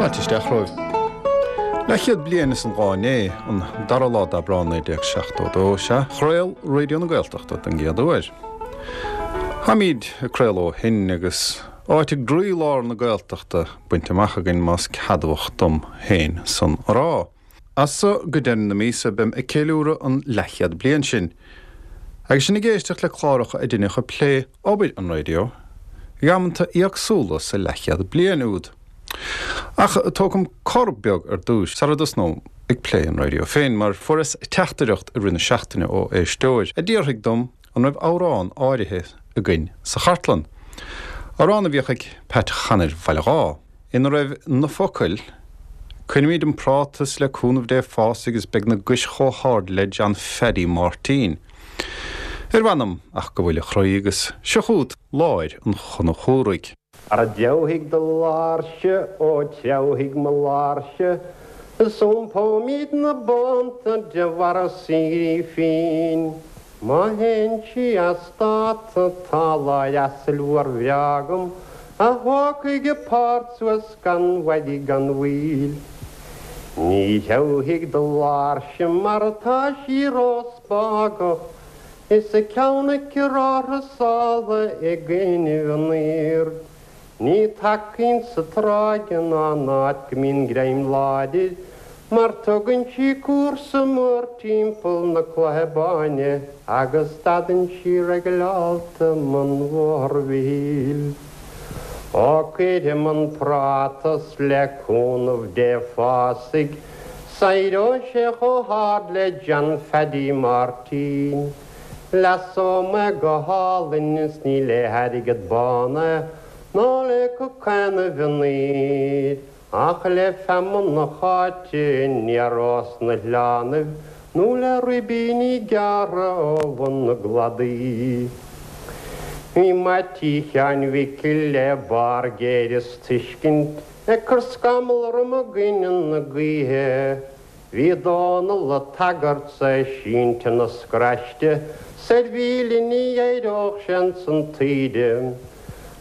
Fáilte isteach romhaibh. Leathchéad bliain is an lá inné, an dara lá d'Aibreán 1972, sea, chraol Raidió na Gaeltachta don gcéad uair. Táimid ag craoladh ó shin agus áit i gcroílár na Gaeltachta bainte amach againn más ceadmhach dom féin san a rá. As so go deireadh na míosa beim ag ceiliúradh an leathchéad bliain sin. Agus sinn ag éisteacht le cláracha a deineadh ag plé obair an raidió ag amanta éagsúla sa leathchéad bliain úd. Ach tógfam cor beag ar dtúis sara dtosnóm ag plé an raidió féin mar fuaireas teachtaireacht i rith na seachtaine ó éisteoir a d'fhiafraigh dom an raibh amhrán áirithe againn sa chartlann. Amhrán a bhíodh ag Pat Chanair Bhaile Dháith, ina raibh na focail, Cuirfimid an práta 's le cúnamh Dé fásfaidh is beidh na gais chomh hard le John Pheaidí Mháirtín. Ar mh'anam ach go bhfuil a chroí agus seo chugat láir an Chonchúraigh. Ara treabhfaidh do láirse, ó treabhfaidh mo láirse, is iompóimid na bónta de bharra saoirí fínn. Má théann sí as dáta tá láir asail mhór bhreá agam a thógfaidh a páirt suas gan mhoill gan mhoill. Ní threabhfaidh do láirse mar tá sí róspágach is a ceann aici róthrasála i gcoinnibh an aoird. Ní tacaíonn sa tráigh ná in áit go mbíonn greim láidir, mar tugann sí cúrsa mór timpeall na Cloiche Báine agus stadann sí regileálta i mbun Bhóthar Mhichíl. Ó cuirfidh an práta 's le cúnamh Dé fásfaidh, 's éireoidh sé chomh hard le John Pheaidí Máirtín. Leasóidh mé go hálainn is ní le hairgead bán é ná le cocaon an mhionair ach le feamainn na háite aniar ós na hoileánaibh nó le ribíní gearrtha ó bhun na gcladaí. Bhí Meaití Sheáin Mhicil le barr géire is tuiscint ag cur scamall orm i gcoinne na gaoithe. Bhí Dónall a' tagairt 's é sínte 'na scraiste 's ar mhíle ní éireodh sé ins an taoide.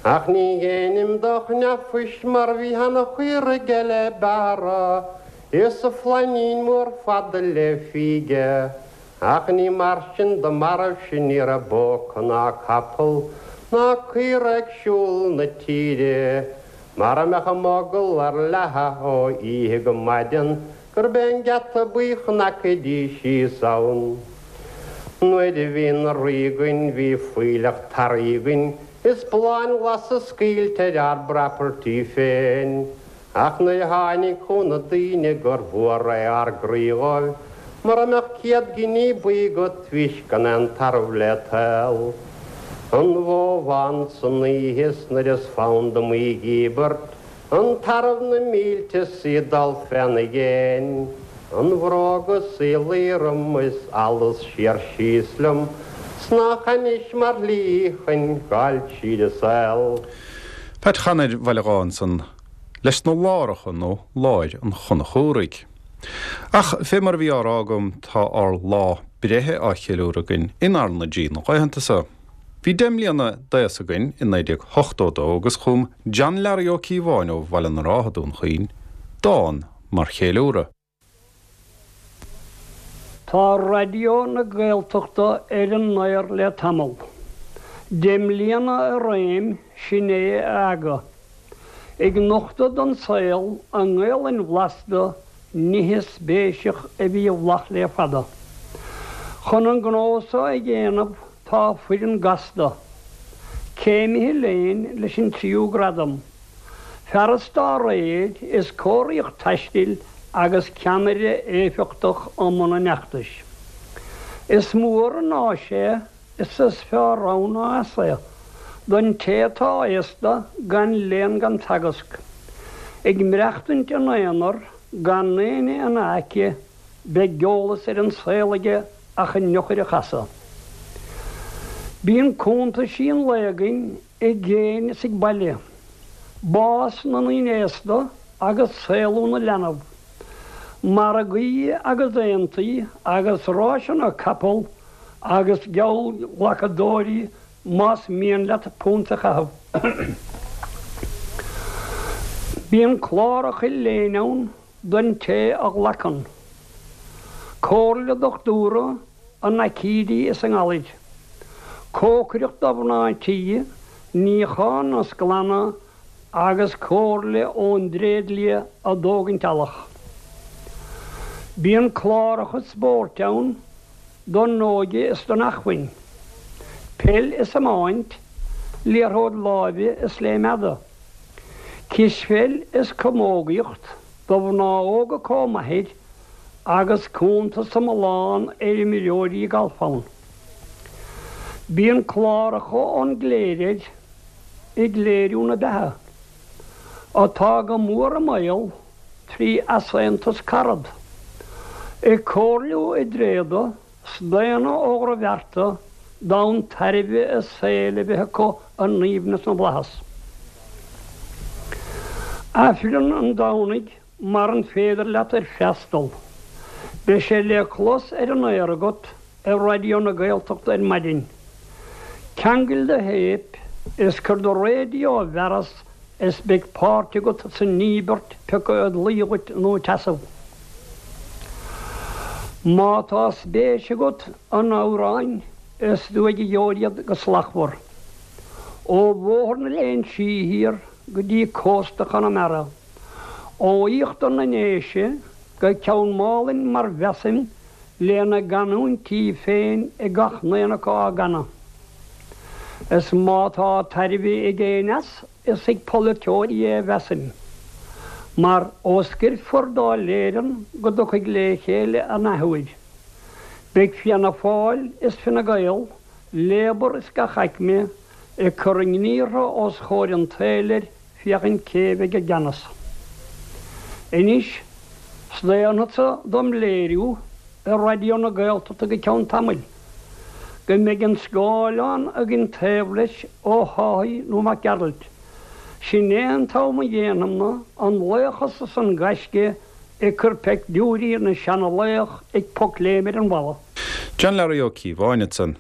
Ach ní dhéanaim do chneaphoist mar bhí ana-chaora aige le bearradh is a flainín mór fada le fíge. Ach ní mar sin do mairbh-se ní raibh bó acu ná capall ná caora ag siúl na tíre. Mara mbeadh a mogall ar leathadh ó oíche go maidean gurb é an geata buí chnagfaidís síos ann. Nuair a bhí na rí againn bhí fuílleach tarraí againn is bláthanna glasa scaoilte ar ár bproperty féin. Ach nuair a tháinig chugainn na daoine gur mhór é ár gcroí dhóibh mura mbeadh 100 giní buí agat bhís gan aon tarbh le tál. An bhó bhán san oíche 's nuair is fonn dom í dhíbirt, an tarbh na mílte 's í dul féna dhéin, an bhróg is í luí orm is allas siar síos liom 's nách ainnis mar shlí chun gabháil tríd an saol. Pat Chanair Bhaile Dháith ansan leis na láracha nó láir an Chonchúraigh. Ach fé mar a bhí á rá agam tá ár lá breithe á cheiliúradh againn in R na G na laethanta so. Bhí 10 mbliana d'aos againn i 1982 agus chum John Learaí Ó Cíobháin ó Bhaile na Rátha, Dún Chaoin, dán mar cheiliúradh. Tá Raidió na Gaeltachta ar an aer le tamall. 10 mbliana i réim, sin é a aga. Ag nochtadh don saol a nGaelainn bhlasta, nithe spéiseach a bhí i bhfolach le fada. Chun an gnó so a dhéanamh tá foireann gasta, céimithe léinn leis an tríú gradam, fearas dá réir is cóiríocht taistil agus ceannaire éifeachtach i mbun an fheachtais. Is mór an áis é Is is fearr ann ná as é, don té atá aosta gan léann gan teagasc, ag maireachtaint ina aonar gan éinne ina aice, beidh eolas ar an saol aige ach an eochair a chasadh. Bíonn cuntaisí an lae againn i gcéin is ag baile, bás na ndaoine aosta agus saolú na leanbh, margaí agus aontaí agus ráiseanna capall, agus Bíonn cláracha léinn ann don té a ghlacann. Comhairle dochtúra i n-aicídí is i ngalair. Cócaireacht do mhná tí, níochán is glanadh agus comhairle ón dtréidlia i dtógaint eallach. Bíonn cláracha spóirt ann don óige is don acmhainn. Peil is iomáint, liathróid láimhe is léim fhada. Cispheil is camógaíocht do mhná óga comh maith agus cuntas iomlán ar imreoirí gailf ann. Bíonn cláracha ón gcléir air ag léiriú na beatha, atá go mór i mbaol trí easaontas carad, ag comhairliú i dtréada 's daonna ó dhrochbhearta d'fhonn tairbhe a saoil a bheith acu i n-aoibhneas na bhFlaitheas. Aifreann an Domhnaigh maran féidir leat air freastal, beidh sé le clos ar an aer agat ar Raidió na Gaeltachta ar maidin. Ceangail do théip is cuir do raidió i bhfearas is beidh páirt agat san íobairt pioca ag luí dhuit nó ag seasamh. Má tá spéis agat in amhráin is tú ag gheobhair iad go slachtmhar. Ó Bhóthar na Léinsí thiar go dtí cósta Chonamara, ó íochtar na nDéise go Ceann Málainn mar mheasaim lena gcanúintí féin ag gach n-aon acu á gcanadh. Is má tá tairbhe ag éinne as, is ag polaiteoirí é a mheasaim. Mar ó scoirfear Dáil Éireann go dtiocfaidh le chéile an athuair, beidh Fianna Fáil is Fine Gael, Labour is gach aicme ag cur a ngníortha os chomhair an tsaoil air féachaint cé bheidh i gceannas. Anois, staonfadsa dom léiriú ar Raidió na Gaeltachta go ceann tamaill, go mbeidh an scáileán againn taobh leis Ó hÁthaigh nó Mac Gearailt. Sin é an t-am a dhéanfam-na an laochas is an gaisce ag cur peictiúirí na seana-laoch ag pocléim ar an bhalla. John Learaí Ó Cíobháin ansan.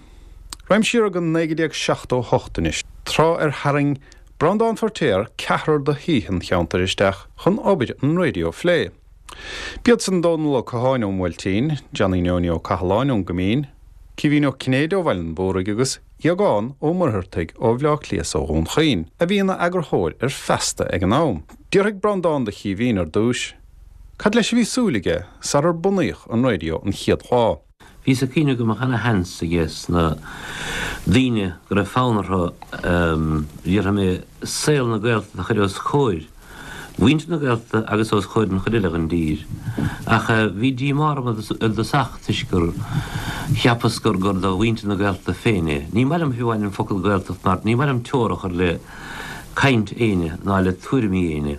Raghaim siar go 1978 anois, tráth ar tharraing Breandán Feiritéar ceathrar de shaoithe an cheantair isteach chun obair an raidió a phlé. B'iad san Dónal Ó Catháin ón mBuailtín, Johnny Neoiní Ó Cathaláin ón gCoimín, Caoimhín Ó Cinnéide ó Bhaile an Mhúraigh agus Aogán Ó Muircheartaigh ó Bhleá Cliath is ó Dhún Chaoin, a bhí ina eagarthóir ar Feasta ag an am. D'fhiafraigh Breandán de Chaoimhín ar dtúis cad leis a bhí súil aige sarar bunaíodh an raidió an chéad lá. Bhíos ag cuimhneamh go mbeadh ana sheans aige sna daoine go raibh fonn orthu, déarfaidh mé, saol na Gaeltachta a chur os comhair mhuintir na Gaeltachta agus os comhair an chuid eile den dtír. Ach bhí díomá orm i dtosach toisc gur cheapas gur gur do mhuintir na Gaeltachta féin é. Ní maith liom fiú amháin an focal Gaeltacht mar ní maith liom teora a chur le caint éinne ná le tuairimí éinne.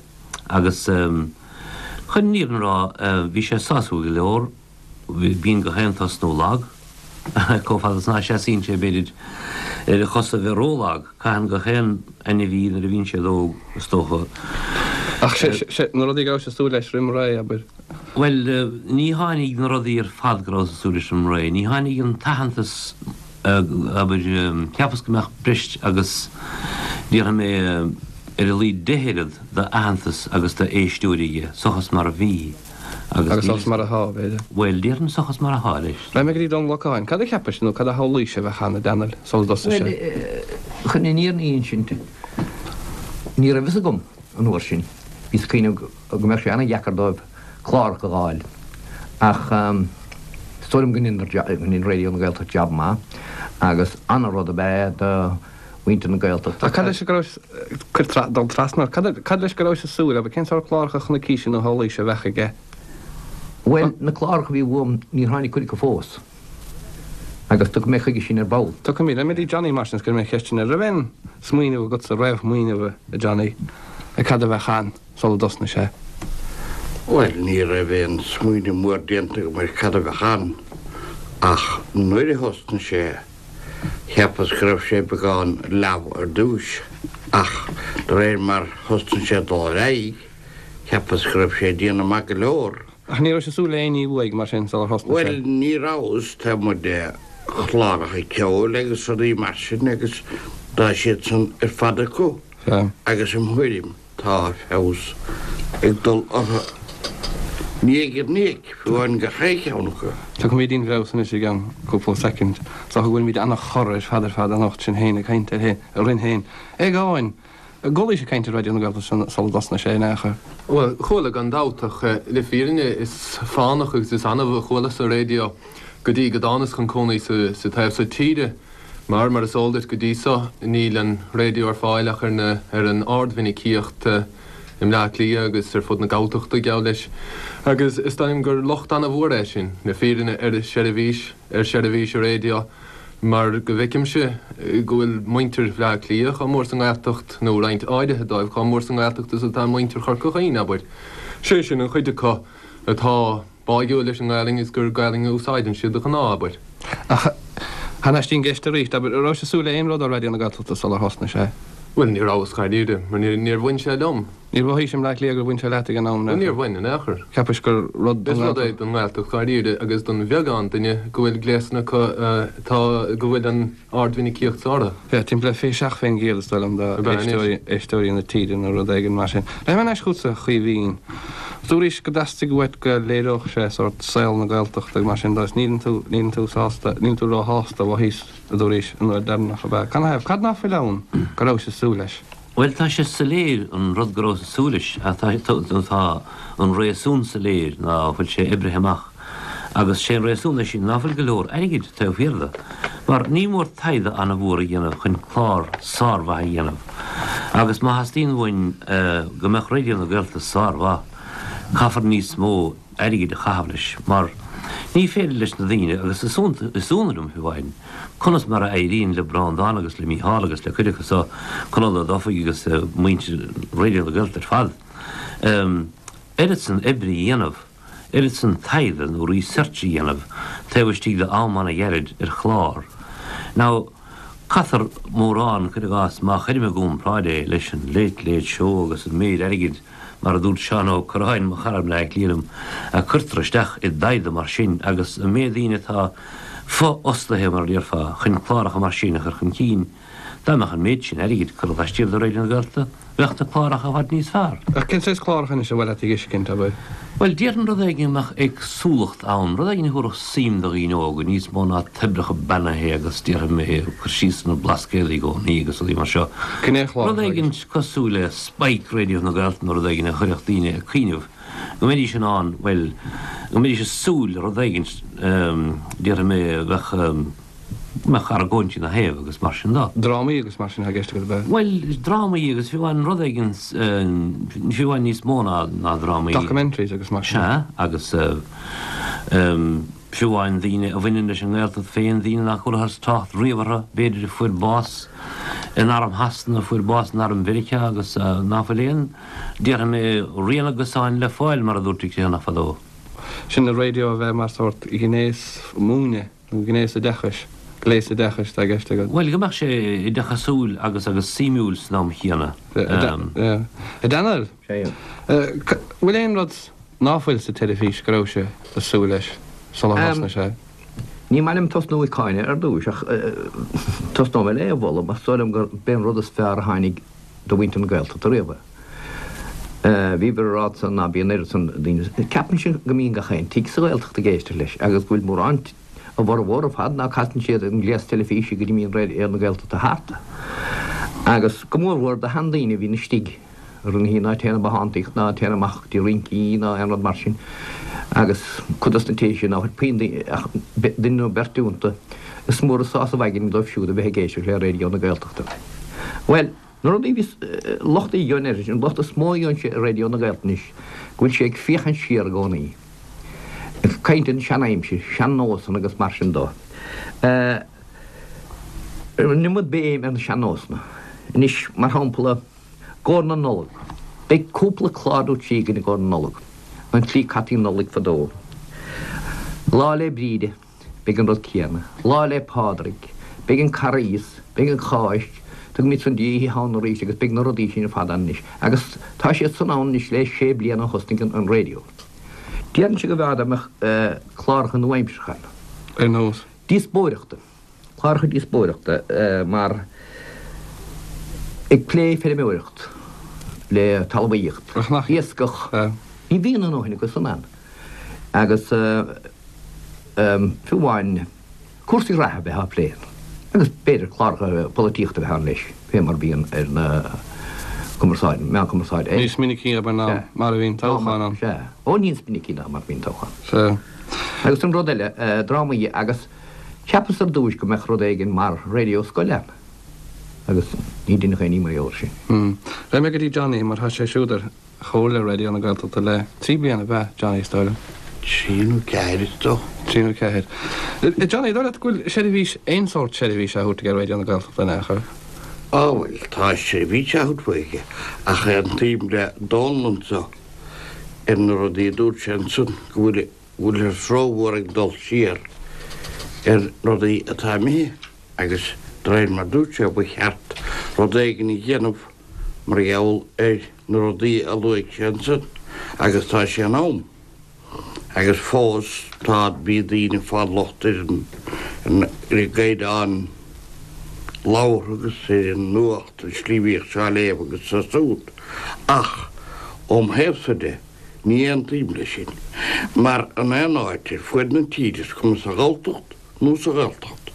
Agus chun an fhírinne a rá bhí sé sásúil go leor. Bíonn gach aon tosnú lag. Chomh fada is ná seasaíonn sé, b'fhéidir, ar a chosa a bheith ró-lag. Caitheann gach aon ainmhí nuair a bhíonn siad óg, is dócha. Ach sé na rudaí go rabhais ag súil leis roim ré, abair. Bhuel, ní tháinig na rudaí ar fad go rabhas ag súil leis roim ré. Ní tháinig an t-aitheantas, abair, cheapas go mbeadh breis agus, déarfaidh mé, ar a laghad 10 oiread d'aitheantas agus d'éisteoirí aige, seachas mar a bhí. Agus seachas mar atá, b'fhéidir. Bhuel, déarfainn seachas mar atá leis. Raghaidh mé go dtí Dónal Ó Catháin. Cad a cheapais nó cad a shamhlaís a bheadh ann, a Dónaill, sula dtosaigh sé? Bhuel, chun an fhírinne a insint, ní raibh fhios agam an uair sin. Bhíos ag cuimhneamh go mbeadh sé an-dheacair dóibh cláracha a dh'fháil. Ach is dóigh liom go ndein Raidió na Gaeltachta jab maith agus an-rud ab ea é do mhuintir na Gaeltachta. Ach cad leis go raibh, cuir tra, dul trasna, cad, cad leis go rabhais ag súil, abair, cén sórt cláracha a chonaicís nó a shamhlaís a bheadh aige? Bhuel, na cláracha a bhí uaim, níor tháinig cuid acu fós. Agus tiocfaidh mé chuige sin ar ball. Tiocfaimid. Raghaidh mé go dtí Johnny mar sin is cuirfidh mé an cheist sin air. Raibh aon smaoineamh agatsa, réamhshmaoineamh, a Johnny, ar cad a bheadh ann sula dtosnaigh sé? Bhuel, ní raibh aon smaoineamh mór déanta agam ar cad a bheadh ann, ach nuair a thosnaigh sé, Cheapas go raibh sé beagán leamh ar dtúis, ach de réir mar thosnaigh sé ag dul ar aghaidh, cheapas go raibh sé ag déanamh maith go leor. Ach ní rabhais ag súil le aon ní uaidh, mar sin, sular thosnaigh sé? Bhuel, ní rabhas, taobh amuigh de chláracha ceoil agus rudaí mar sin, agus tá siad san ar fad acu, agus im thuairim, tá. tá feabhas ag dul orthu. Ní ag an íoc, fiú amháin gach aon cheann acu. Tiocfaimid dtí'n bhfeabhas anois i gceann cúpla soicind. Is dócha go bhfuilimid ana-chorr ar fad ar fad anocht, sinn féin ag caint ar orainn féin. Aogáin! An gcualaís ag caint ar Raidió na Gaeltachta sula dtosnaigh sé in aon chor? Bhuel, chuala gan dabht, ach le fírinne is fánach agus is annamh a chualas-sa raidió go dtí go dtánas chun cónaí sa taobh so tíre, mar, mar is eol duit, go dtí so níl an raidió ar fáil ach ar na, ar an ardmhinicíocht i mBleá Cliath agus ar fud na Galltachta, geall leis. Agus is dóigh liom gur locht ana-mhór é sin, le fírinne, ar sheirbhís, ar sheirbhís an raidió. Mar go bhfeicimse go bhfuil muintir Bhleá Cliath chomh mór sa nGaeltacht, nó roinnt áirithe dóibh, chomh mór sa nGaeltacht is atá muintir Chorca Dhuibhne, abair. Sé sin, an chuid acu atá báigiúil leis an nGaelainn is gur Gaelainn a úsáideann siad de ghnáth, abair. Ach thar n-ais dtí'n gceist arís, abair, an rabhais ag súil le aon rud ó Raidió na Gaeltachta sular thosnaigh sé? Bhuel, ní rabhas, dháiríre, mar níor bhain sé liom. Níor mhothaís i mBleá Cliath gur bhain sé leat ag an am in aon chor. Níor bhain, in aon chor. Cheapais gur rud don Is rud é don nGaeltacht dháiríre agus don bheagán duine go bhfuil gléasanna acu atá, go bhfuil an ardmhinicíocht orthu. Yeah, timpeall le 27% is dóigh liom de éisteoirí, éisteoirí na tíre nó rud éigin mar sin. Rachaidh mé thar n-ais chugatsa a Chaoimhín. Dúraís go dteastaigh uait go léireodh sé sórt saol na Gaeltachta agus mar sin de is níleann tú, níleann tú sásta, níleann tú róshásta, mhothaíos, a dúraís an uair deireanach, ab ea? Canathaobh? Cad ná fuil ann go rabhais ag súil leis? Bhuel, tá sé soiléir an rud go rabhas ag súil leis, ach tá, nó tá an réasún soiléir ná fuil sé oibrithe amach. Agus sé an réasún leis sin ná fuil go leor airgid taobh thiar de. Mar ní mór taighde ana-mhór a dhéanamh chun clár sármhaith a dhéanamh. Agus má theastaíonn uainn go mbeadh Raidió na Gaeltachta sármhaith, caithfear níos mó airgid a chaitheamh leis. Mar ní féidir leis na daoine, agus is ionadh liom fiú amháin, Conas mar a éiríonn le Breandán agus le Mícheál agus le cuid acu so, Conall Ó Dufaigh agus muintir Raidió na Gaeltachta ar fad, oiread san oibre a dhéanamh, oiread san taighde nó research a dhéanamh taobh istigh de am ana-ghairid ar chlár. Now, caithfear mórán, cuir i gcás, má chuirim i gcomparáid é leis an Late Late Show agus an méid airgid, mar a dúirt Seán Ó Curráin, mo chara i mBleá Cliath liom, a cuirtear isteach i dtaighde mar sin agus an méid daoine atá fo-fhostaithe, mar a déarfá, chun cláracha mar sin a chur chun cinn. Dá mbeadh an méid sin airgid curtha laistiar de Raidió na Gaeltachta, bheadh na cláracha i bhfad níos fearr. Ach cén saghas cláracha anois ar mhaith leat a dh'fheiscint, abair? Bhuel, déarfainn rud éigin a mbeadh éagsúlacht ann, rud éigin a thabharfadh suim do dhaoine óga, níos mó ná toibreacha beannaithe agus, déarfaidh mé, cur síos ar na Blascaodaí i gcónaí agus rudaí mar seo. Gnéchlár Rud éigin cosúil le Spike Raidió na Gaeltachta nó rud éigin a chuirfeadh daoine ag cuimhneamh go mbeidís in ann, bhuel, go mbeidís ag súil le rud éigin, déarfaidh mé, a bheadh, go mbeadh argóint ina thaobh agus mar sin de. Drámaí agus mar sin atá i gceist agat, ab ea? Bhuel, drámaí agus fiú amháin rud éigin, fiú amháin níos mó ná, ná drámaí. Documentaries agus mar sin. Sea, agus fiú amháin daoine a bhaineann leis an nGaeltacht féin, daoine nach gcualathas trácht riamh orthu, b'fhéidir, a fuair bás in arm Shasana, a fuair bás in arm Mheiriceá agus ná fuil aon, Déarfaidh mé rian a gcosáin le fáil, mar a dúirt an Criomhthanach fadó. Sin an raidió a bheith mar sórt gnéas múineadh nó gnéas oideachais, gléas oideachais atá i gceist agat. Bhuel, go mbeadh sé oideachasúil agus agus suimiúil san am chéanna. A Daniel, bhfuil aon rud ná fuil sa teilifís go rabhais ag súil leis sular thosnaigh sé? Ní maith liom tosnú ag cáineadh ar dtúis ach tosnóidh mé le é a mholadh mar is dóigh liom gur b'é an rud is fearr a tháinig do mhuintir na Gaeltachta riamh. Bhíobhair ag rá ansan ná bíonn oiread san daoine, ceapaimse go mbíonn gach aon tigh sa Ghaeltacht ag éisteacht leis agus go bhfuil mórán, a bhformhór ar fad, ná casann siad an gléas teilifíse go dtí mbíonn Raidió na Gaeltachta thart. Agus go mórmhór do sheandaoine a bhíonn istigh ar na ná téann ag bothántaíocht ná téann amach go dtí rincí ná aon rud mar sin agus cuid dos na tithe sin ná fuil puinn ach duine nó beirt iontu, is mór an sásamh aigne dóibh siúd a bheith ag éisteacht le Raidió na Gaeltachta. Bhuel, na rudaí a bhíos, locht a gheobhainn air, an locht is mó a gheobhainnse ar Raidió na Gaeltachta anois, go bhfuil sé ag féachaint siar i gcónaí, ag caint ar an sean-aimsir, sean-nósanna agus mar sin dó. An iomad béim ar na sean-nósanna. Anois, mar shampla, i gcomhair na Nollag, beidh cúpla clár nó trí againn i gcomhair na Nollag, an tslí caití an Nollaig fadó, Lá 'le Bríde, Beidh an rud céanna. Lá 'le Pádraig. Beidh an Carghas. Beidh an Cháisc. Tugaimid san Oíche Shamhna arís agus beidh na rudaí sin ar fad ann anois. Agus tá siad san ann anois le sé bliana ó thosnaigh an raidió. Déarfainnse go mb'fhearr dá mbeadh cláracha nua-aimseartha ann. Ar nós? Díospóireachta. Cláracha díospóireachta mar ag plé feirmeoireacht. le talmhaíocht, iascach, ní bhíonn a ndóthain acu san ann. Agus fiú amháin cúrsaí reatha a bheith á phlé ann, agus b'fhéidir cláracha polaitíochta a bheith ann leis, fé mar a bhíonn ar na cumarsáid, meáin cumarsáide eile. Níos minicí abair ná mar a bhíonn toghchán ann. Sea. Ó níos minicí ná mar a bhíonn toghchán. Sea. Agus an rud eile, drámaí agus cheapas ar dtúis go mbeadh rud éigin mar raidió scoile ann. Agus ní deineadh aon ní mar gheall air sin. Raghaidh mé go dtí Johnny mar tá sé siúd ar Chomhairle Raidió na Gaeltachta le 3 bliana, ab ea, Johnny, is dóigh liom? 3 nó 4 is dócha. 3 nó 4. Johnny, dóigh leat go bhfuil seirbhís, aon sórt seirbhís á thabhairt aige Raidió na Gaeltachta in aon chor? Á bhuel, tá seirbhís á thabhairt aige ach aontaím le Dónal anso ar na rudaí a dúirt sé ansan go bhfuil bhfuilthear rómhór ag dul siar ar rudaí atá imithe agus de réir mar dúirt sé ba cheart rud éigin a dhéanamh mar gheall ar na rudaí a luaigh sé ansan agus tá sé in am agus fós tá bhí daoine ag fáil locht ar an ar an gcaighdeán labhartha agus ar an nuacht an slí a bhíodh sé á léamh agus so súd ach óm thaobhsa de Ní aontaím leis sin, mar in aon áit ar fuaid na tíre, is cuma sa Ghalltacht nó sa Ghaeltacht,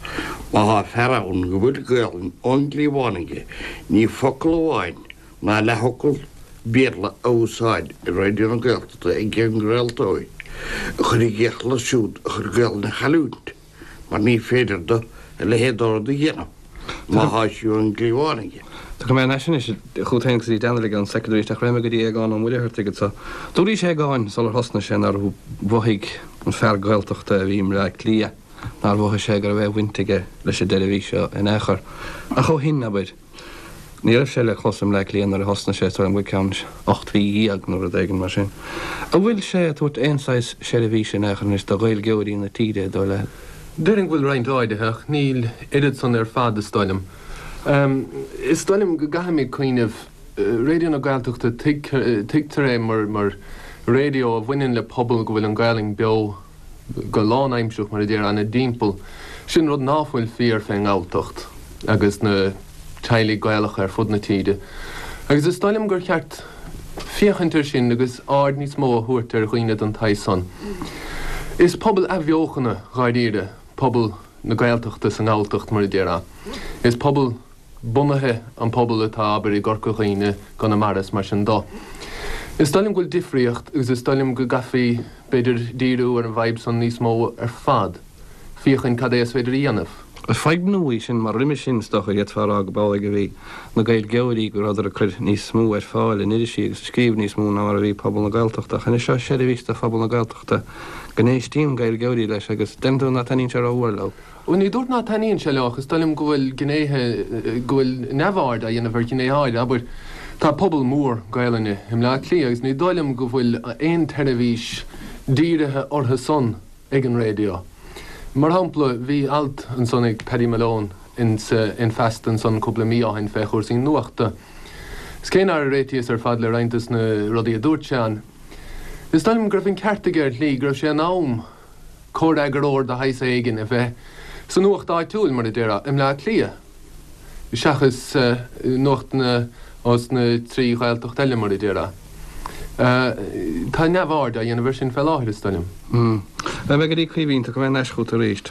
má thá fear ann go bhfuil Gaelainn ón gcliabhán aige, ní focal amháin ná leathfhocal Béarla a úsáid i Raidió na Gaeltachta ag an gcraoltóir a chur i gcrích leo siúd a chuir Gaelainn a chailliúint. mar ní féidir do a leithéid de rud a dhéanamh má thá sí ón gcliabhán aige. Tiocfaidh mé anois anois chugat féin agus go dtí Daniel i gceann soicind arís ach raghaidh mé go dtí Aogán Ó Muircheartaigh anso. Dúraís Aogáin sular thosnaigh sé nár mhothaigh an fear Gaeltachta a bhí i mBleá Cliath, nár mhothaigh sé go raibh aon bhaint aige leis an tseirbhís seo in aon chor. Ach ó shin, abair, Ní raibh sé le clos i mBleá Cliath nuair a thosnaigh sé, is dóigh liom go ceann 18 mhí nó rud éigin mar sin. An bhfuil sé ag tabhairt aon saghas seirbhíse in aon chor anois do Ghaeilgeoirí na tíre, dóigh leat? Déarfainn go bhfuil roinnt áirithe, ach níl oiread san ar fad, is dóigh liom. Is dóigh liom go gcaithfimid cuimhneamh, Raidió na Gaeltachta, tuigtear é mar raidió a bhaineann le pobal go bhfuil an Ghaelainn beo, go lánaimsearach, mar a déarfá, ina dtimpeall. Sin rud ná fuil fíor fén nGalltacht agus na teaghlaigh Gaelacha ar fud na tíre. Agus is dóigh liom gur cheart féachaint air sin agus aird níos mó a thabhairt ar dhaoine den tsaghas san. Is pobal athbheochana, dháiríre, pobal na Gaeltachta sa nGalltacht, mar a déarfá. Is pobal. bunaithe an pobal atá, abair, i gCorca Dhuibhne, gConamara is mar sin do. Is dóigh liom go bhfuil difríocht agus is dóigh liom go gcaithfí, b'fhéidir, díriú ar an bhfadhb san níos mó ar fad, féachaint cad é is féidir a dhéanamh. Is fadhb nua í sin mar roimhe sin is dócha d'fhéadfá a rá go b'amhlaidh a bhí na Gaeilgeoirí go rabhadar ag cur níos mó ar fáil in irisí agus ag scríobh níos mó ná mar a bhí pobal na Gaeltachta ach anois seo seirbhís do phobal na Gaeltachta go n-éistíonn Gaeilgeoirí leis agus deireann tú ná taitníonn sé rómhór leo. Bhuel, ní dúirt ná taitníonn sé leo ach is dóigh liom go bhfuil gnéithe, go bhfuil neamhaird á dhéanamh ar ghnéithe áirithe. Abair, tá pobal mór Gaelainne i mBleá Cliath agus ní dóigh liom go bhfuil aon tseirbhís dírithe orthu san ag an raidió. Mar shampla, bhí alt ansan ag Paddy Malone in in Feasta ansan cúpla mí ó shin fé chúrsaí nuachta. Is cé nár réitíos ar fad le roinnt des na rudaí a dúirt sé ann, is dóigh liom go raibh an ceart aige ar shlí, go raibh sé in am comhfhreagróir de shaghas éigin a bheith sa nuacht áitiúil, mar a déarfá, i mBleá Cliath, seachas nuachtanna ós na 3 Ghaeltacht eile, mar a déarfá. Tá neamhaird á dhéanamh air sin fé láthair, is dóigh liom. Raghaidh mé go dtí Caoimhín, tiocfaidh mé ar ais chugat arís.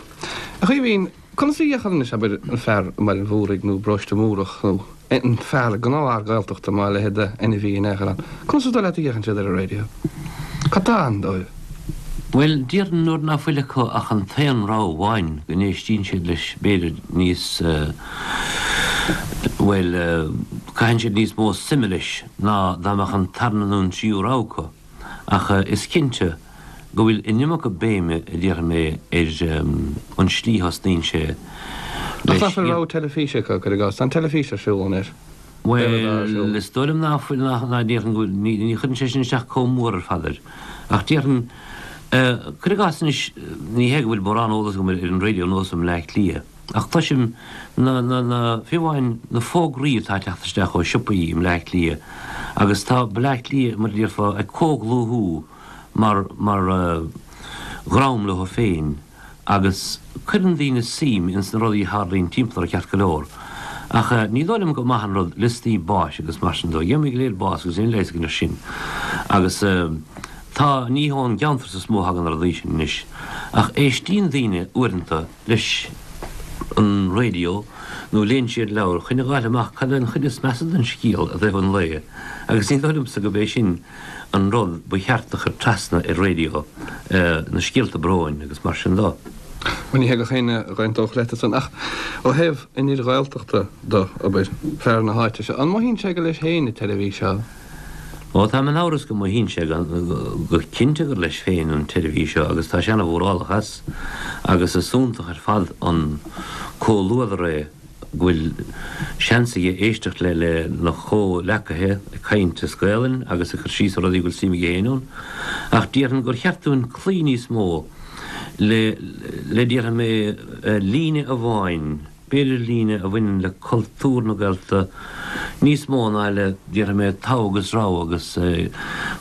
A Chaoimhín, Conas a fhéachann anois, abair, an fear i mBaile an Mhúraigh nó i bParóiste Múrach nó an fear, gnáthfhear Gaeltachta má a leithéid d'ainmhí in aon chor ann, conas is dóigh leat a fhéachann siad ar an raidió? Cad tá ann dóibh? Bhuel, déarfainn nuair ná fuil acu ach an t-aon rogha amháin go n-éistíonn siad leis b'fhéidir níos, bhuel, caitheann siad níos mó suime leis ná dá mbeadh an tarna nó an tríú rogha acu. Ach is cinnte go bhfuil an iomarca béime, a déarfaidh mé, ar an slí a thosnaíonn sé Ach leis. nach bhfuil rogha teilifíse acu, cuir i gcás? Tá an teilifís ar siúl anois. Bhuel, is dóigh liom ná fuil, ná, ná déarfainn go bhfuil, ní, ní chuireann sé sin isteach comh mór ar fad air. Ach déarfainn, cuir i gcás anois, ní hé go bhfuil mórán eolas agam ar an raidió anuas i mBleá Cliath, Ach cloisim na, na, na, fiú amháin na fógraí atá ag teacht isteach ó shiopaí i mBleá Cliath agus tá Bleá Cliath, mar a déarfá, ag comhdhlúthú mar, mar dhream leo féin agus cuireann daoine suim ins na rudaí a tharlaíonn timpeall orthu ceart go leor. Ach ní dóigh liom gur maith an rud liostaí báis agus mar sin dó. Gheobhaimid go léir bás agus níl leigheas againn air sin. Agus tá, ní ón gceantar so is mó a thagann na rudaí sin anois. Ach éistíonn daoine uaireanta leis an raidió nó léann siad leabhar chun a dh'fháil amach cad é an chuid is measa den scéal i dtaobh an lae agus ní dóigh liomsa gurb é sin an rud ba cheart a chur trasna ar raidió, na scéalta bróin agus mar sin dó. Bhuel, ní hé gach éinne a dh'aontódh leat ansan, ach ó thaobh an fhir Ghaeltachta do, abair, fear na háite seo, an mothaíonn sé gur leis féin an tseirbhís seo? Ó, táim in amhras go mothaíonn sé go cinnte gur leis féin an tseirbhís seo agus tá sé ana-mhórálach as agus is iontach ar fad an comhluadar é go bhfuil seans aige éisteacht le lena chomhleacaithe ag caint as Gaelainn agus ag cur síos ar rudaí go bhfuil suim aige féin ann. Ach déarfainn gur cheart dúinn cloí níos mó le, le déarfaidh mé, líne amháin, b'fhéidir líne a bhaineann le cultúr na Gaeltachta níos mó ná le, déarfaidh mé, togha agus rogha agus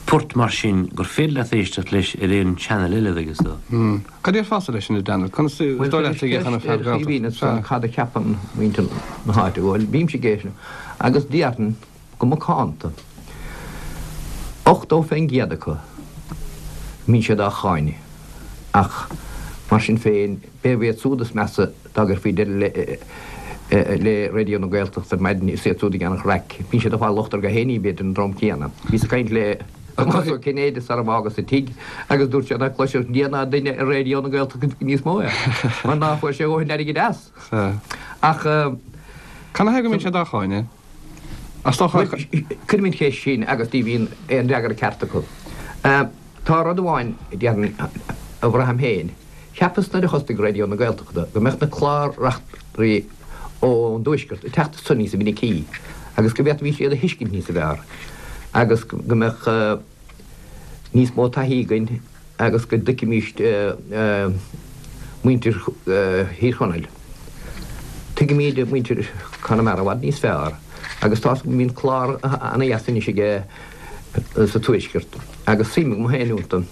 port mar sin gur féidir leat éisteacht leis ar aon channel eile, agus. Cad a déarfása leis sin, a Daniel? Conas is dóigh leat a dhéanfadh an fear Gaeltacht? Sea. Cad a cheapann muintir na háite? Bhuel, bímse ag éisteacht agus déarfainn go macánta, 80% acu, mbíonn siad á cháineadh. Ach mar sin féin, b'fhéidir iad siúd is measa dá gcuirfí deireadh le Raidió na Gaeltachta ar maidin, is iad siúd a dhéanfadh raic. Bíonn siad ag fáil locht orthu féin, b'fhéidir, an dream céanna. Bhíos ag caint le. Tomás Ó Cinnéide sara bhfágas an tigh agus dúirt sé ná cloisfeadh Dia ná duine ar Raidió na Gaeltachta níos mó é mar ná fuair sé a dhóthain airgid as. Ach. Canathaobh go mbíonn siad á cháineadh? Is dócha. Cuirim an cheist sin agus ní bhíonn aon fhreagra ceart acu. Tá rud amháin a déarfainn a bhraithim féin. Cheapas nuair a thosnaigh Raidió na Gaeltachta go mbeadh na clár-reachtairí ón dtuaisceart ag teacht anso níosa mhinicí agus go bhféadfaimís iad a thuiscint níosa bhfearr agus go mbeadh níos mó taithí againn agus go dtuigfimís muintir Thír Chonaill. Tuigimíd muintir Chonamara i bhfad níos fearr agus tá's agam go mbíonn clár ana-dheas anois aige sa Tuaisceart agus suim agam féin iontu.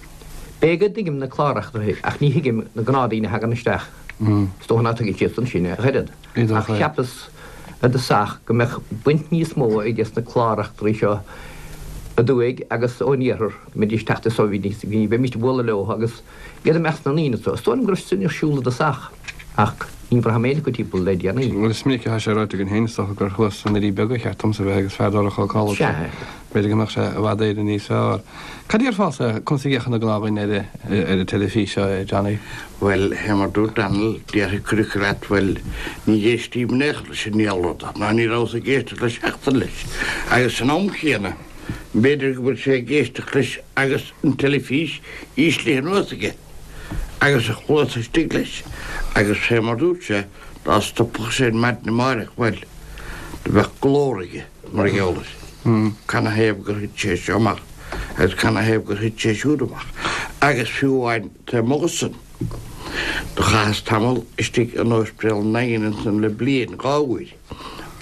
B'fhéidir go dtuigim na clár-reachtairí ach ní thuigim na gnáthdaoine a thagann isteach. Is dócha ná tuigeann siadsan sin ach oiread. Ach cheapas i dtosach go mbeadh baint níos mó aige sna clár-reachtairí seo aduaidh agus ón iarthar, go mbeidís ag teacht anso, bheimís ag bualadh leo agus iad i measc na ndaoine anso. Is dóigh liom go raibh sin ar siúl i dtosach ach ní bhraithim aon acu timpeall le déanaí. Bhuel, is minic atá sé ráite againn féin, is dócha, gur thuas sna Doirí Beaga a cheart domsa a bheith agus fear Dara Ó Cadhla. Sea. B'fhéidir go mbeadh sé i bhfad Éireann níos fearr. Cad a déarfása, conas a fhéachann an gnáthdhuine ar ar an teilifís seo, a Johnny? Bhuel, fé mar dúirt Daniel, déarfaidh cuid acu leat, bhuel, ní éistím in aon chor leis an ndiabhal rud, ná ní rabhas ag éisteacht leis seachtain leis. Agus san am chéanna, b'fhéidir go bhfuil sé ag éisteacht leis agus an teilifís íslithe anuas aige, agus a chluasa istigh leis, agus fé mar dúirt sé, dá stopfadh sé ar maidin amáireach, bhuel, do bheadh glór aige. Mar gheall air. Canathaobh gur thit sé seo amach agus canathaobh gur thit sé siúd amach. Agus fiú amháin taobh amuigh de san, do chaitheas tamall istigh in Ospidéal an Daingin ansan le bliain, dá uair,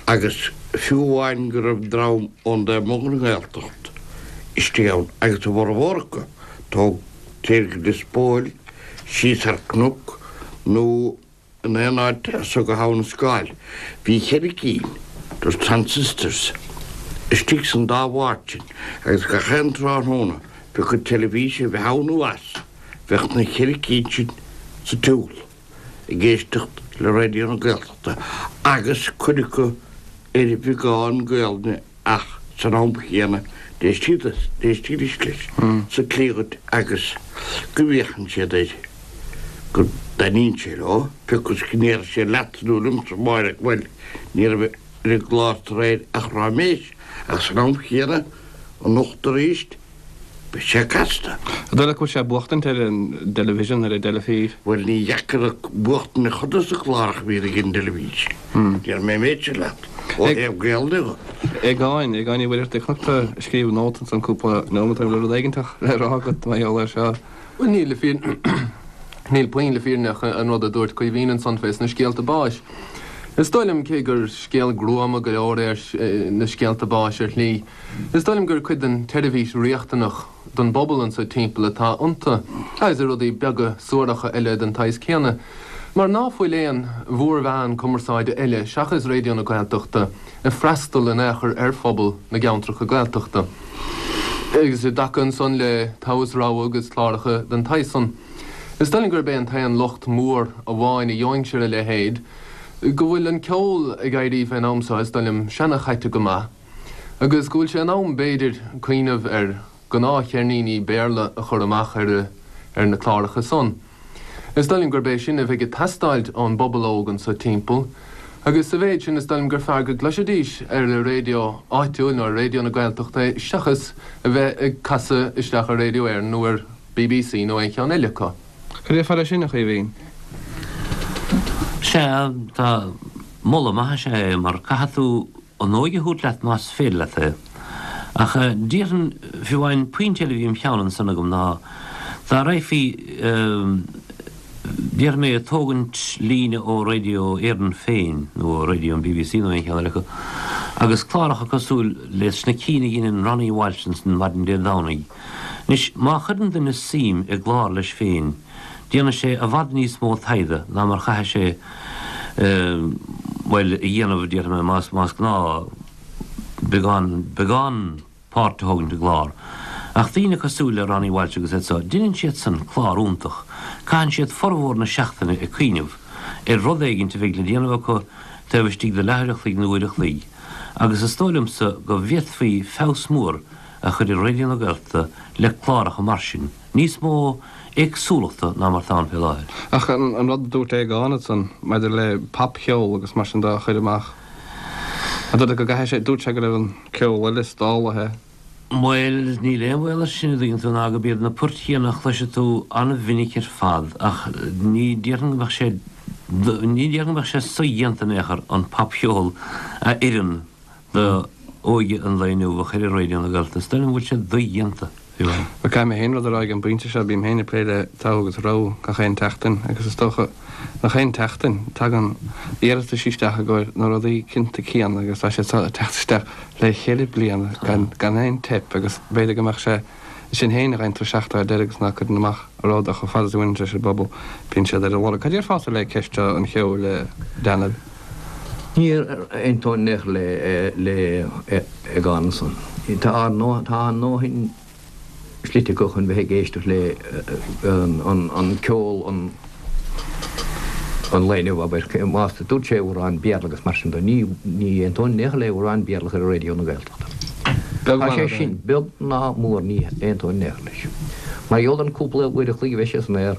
agus fiú amháin go raibh dream ón dtaobh amuigh den nGaeltacht istigh ann, agus a bhformhór acu, tógtar go Lios Póil, síos thar cnoc nó In aon áit as so go hAbha na Scáil bhí cheithre cinn de transistors istigh san dá bhád sin agus gach aon tráthnóna pé acu teilifís a bheith ann nó as, bheadh na cheithre cinn sin sa tsiúl ag éisteacht le Raidió na Gaeltachta agus cuid acu ar bheagán Gaelainne Ach san am chéanna d'éistidís leis sa tslí dhuit agus go bhféachann siad air, go dtaitníonn sé leo, pé acu is go ndéarfaidh siad leatsa nó liomsa amáireach, bhuel, ní raibh ar an gclár aréir ach ráiméis, ach san am chéanna, anocht arís, Beidh sé casta. An dóigh leat go bhfuil sé ag buachtaint ar an dteilifísean, ar an dteilifís? Bhuel, ní dheacair buachtaint ar chuid de na cláracha a bhíonn ag an dteilifís. Déarfaidh mé an méid sin leat, ó thaobh Gaelainne de. Aogáin, Aogáin Uí Mhuircheartaigh, chonac tú ag scríobh nóta ansan cúpla nóiméad ó shin, bhfuil rud éiginteach le rá agat mar gheall air seo? Bhuel, níl le fírinne, níl puinn le fírinne ach an rud a dúirt Caoimhín ansan fés na scéalta báis. Is dóigh liom, cé gur scéal gruama go leor é na scéalta báis ar shlí, Is dóigh liom gur cuid den tseirbhís riachtanach don bpobal anso timpeall atá iontu, agus i rudaí beaga suaracha eile den tsaghas céanna. Mar ná fuil aon mhórmheán cumarsáide eile seachas Raidió na Gaeltachta ag freastal in aon chor ar phobal na gceantracha Gaeltachta. Agus i dtaca ansan le Togha is Rogha agus cláracha den tsaghas san, is dóigh liom gurb é an t-aon locht mór amháin a gheobhainnse ar a leithéid, go bhfuil an ceol ag éirí fén am so, is dóigh liom, seana-chaite go maith, agus go bhfuil sé in am, b'fhéidir, cuimhneamh ar ghnáthcheirníní Béarla a chur amach ar ar na cláracha san. Is dóigh liom gurb é sin a bheidh ag teastáilt ón bpobal óg anso timpeall, agus sa mhéid sin is dóigh liom gur fearr go gcloisfidís ar an raidió áitiúil nó ar Raidió na Gaeltachta é seachas a bheith ag casadh isteach ar Radio Éireann nó ar BBC nó aon cheann eile acu. Cad déarfá leis sin, a Chaoimhín? Sea, tá moladh maith is ea é mar caithfidh tú an óige a thabhairt leat más féidir leat é. Ach déarfainn, fiú amháin, pointe eile a bhí im cheann ansan agam ná dá raghfaí, déarfaidh mé, ag tógaint líne ó Radio Éireann féin nó ó Radio an BBC nó aon cheann eile acu agus cláracha cosúil leis na cinn a dheineann Ronnie Walsh ansan maidin Dé Domhnaigh. Anois, má chuireann duine suim i gclár leis féin, déanfaidh sé i bhfad níos mó taighde ná mar chaithfidh sé, bhuel, a dhéanamh, déarfaidh mé, más, más gnáth beagán, beagán páirt a thógaint i gclár. Ach daoine cosúil le Ronnie Walsh agus iad so, deineann siadsan clár iontach, caitheann siad formhór na seachtaine ag cuimhneamh ar rud éigint a bheidh le déanamh acu taobh istigh de leathuair a chloig nó uair a chloig, agus is dóigh liomsa go bhféadfaí feabhas mór a chur ar Raidió na Gaeltachta le cláracha mar sin. Níos mó éagsúlachta ná mar atá ann fé láthair. Ach an rud a dúirt Aogán ansan maidir le popcheol agus mar sin de a chur amach, an dóigh leat go gcaithfidh sé, dúirt sé go raibh an ceol eile stálaithe. Bhuel, níl aon bhaol air sin, a dtuigeann tú, ná gurb iad na poirt chéanna a chloisfidh tú an-mhinic ar fad, ach ní déarfainn go mbeadh sé, ní déarfainn go mbeadh sé sodhéanta in aon chor an popcheol a oireann do óige an lae inniu a chur ar Raidió na Gaeltachta. Is dóigh liom go bhfuil sé dodhéanta, fiú amháin. Bhuel, caithfidh mé féin rud a rá ag an bpointe seo, bím féin ag plé le togha agus rogha gach aon tseachtain agus is dócha nach aon tseachtain, tagann iarratais isteach i gcomhair na rudaí cinnte céanna agus tá siad ag teacht isteach le cheithre bliana gan aon teip agus b'fhéidir go mbeadh sé sin féin a gheibheann tú isteach ar deireadh agus ná cuireann amach rud ach chomh fada is a bhaineann sé leis an bpobal, bíonn siad ar a lorg. Cad déarfása le ceist seo an cheoil, a Daniel? Ní aontóinn in aon chor le Aogán ansan. Tá ár ndóthain slite acu chun bheith ag éisteacht le an ceol an lae inniu, abair. Más dúirt sé amhráin Béarla agus mar sin de, ní aontóinn in aon chor le amhráin Béarla a chur ar Raidió na Gaeltachta. Tá sé sin beag ná mór ní aontóinn in aon chor leis. Mar gheall ar an cúpla uair a chloig a bheidh sé san aer,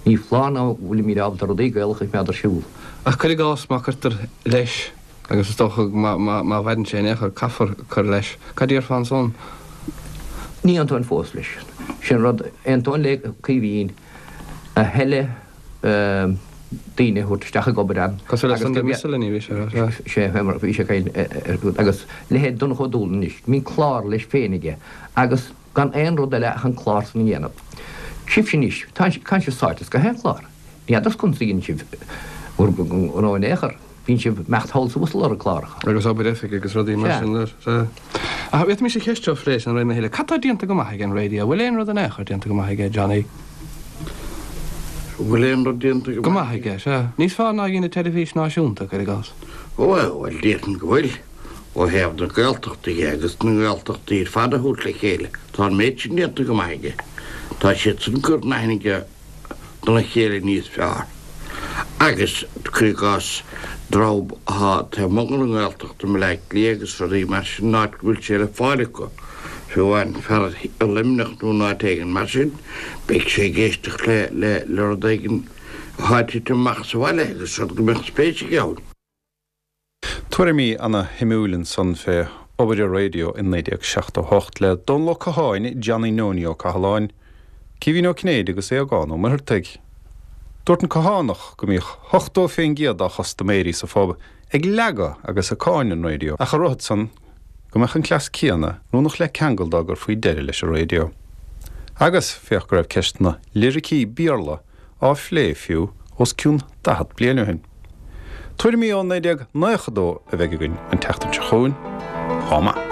ní foláir ná fuilimid ábalta rudaí Gaelacha a choimeád ar siúl. Ach cuir i gcás má cuirtear leis, agus is dócha má mhaireann sé in aon chor, caithfear cur leis, cad déarfá ansan? Ní aontóinn fós leis. Sin rud, aontóinn le Caoimhín, a thuilleadh daoine a thabhairt isteach ag obair ann. Cosúil le Sunday Miscellany, bhí sé a rá, sea. Sea, bhí sé ag caint ar, agus leithéid Donncha Ó Dúlainn anois, bíonn clár leis féin aige agus gan aon rud eile ach an clár san a dhéanamh. Sibhse anois, tá sibh sáite as gach aon chlár. Ní fheadar conas a dhéanann sibh bhur ngnó in aon chor. Bíonn sibh ag imeacht thall is abhus ag lorg cláracha. Agus obair oifige agus rudaí mar sin. Sea. Ach bhféadfaimis an cheist seo a phlé san réim a thuilleadh. Cad tá déanta go maith ag an raidió? Bhfuil aon rud in aon chor déanta go maith aige, Johnny? Bhfuil aon rud déanta go maith aige? Sea. Níos fearr ná a dhein an teilifís náisiúnta, cuir i gcás. Ó, bhuel, déarfainn go bhfuil. Ó thaobh na Gaeltachta dhe agus na nGaeltachtaí ar fad a thabhairt le chéile, tá an méid sin déanta go maith aige. Tá siadsan ag cur in aithne dona chéile níos fearr. Agus, cuir i gcás, dream atá taobh amuigh den nGaeltacht i mBleá Cliath agus rudaí mar sin, an áit go bhfuil sé le fáil acu, fiú amháin fear i Luimneach nó in áit éigin mar sin, beidh sé ag éisteacht le le rud éigin atá ag titim amach sa bhaile agus rud go mbeadh spéis aige ann. Tuairimí ana shuimiúil ansan fé obair an raidió i 1978 le Dónal Ó Catháin, Johnny Nonie Ó Cathaláin, Caoimhín Ó Cinnéide agus Aogán Ó Muircheartaigh. Dúirt an Cathánach go mbíodh 80 fén gcéad dá chustaiméirí sa phub ag leagadh agus ag cáineadh an raidió ach a rothat san go mbeadh an cleas céanna oiriúnach le ceangal dá gcuirfí deireadh leis an raidió. Agus féach go raibh ceist na liricí Béarla á phlé fiú os cionn 40 bliain ó shin. Tuairimí ó 1992 a bheidh againn an tseachtain seo chugainn. Chomh maith.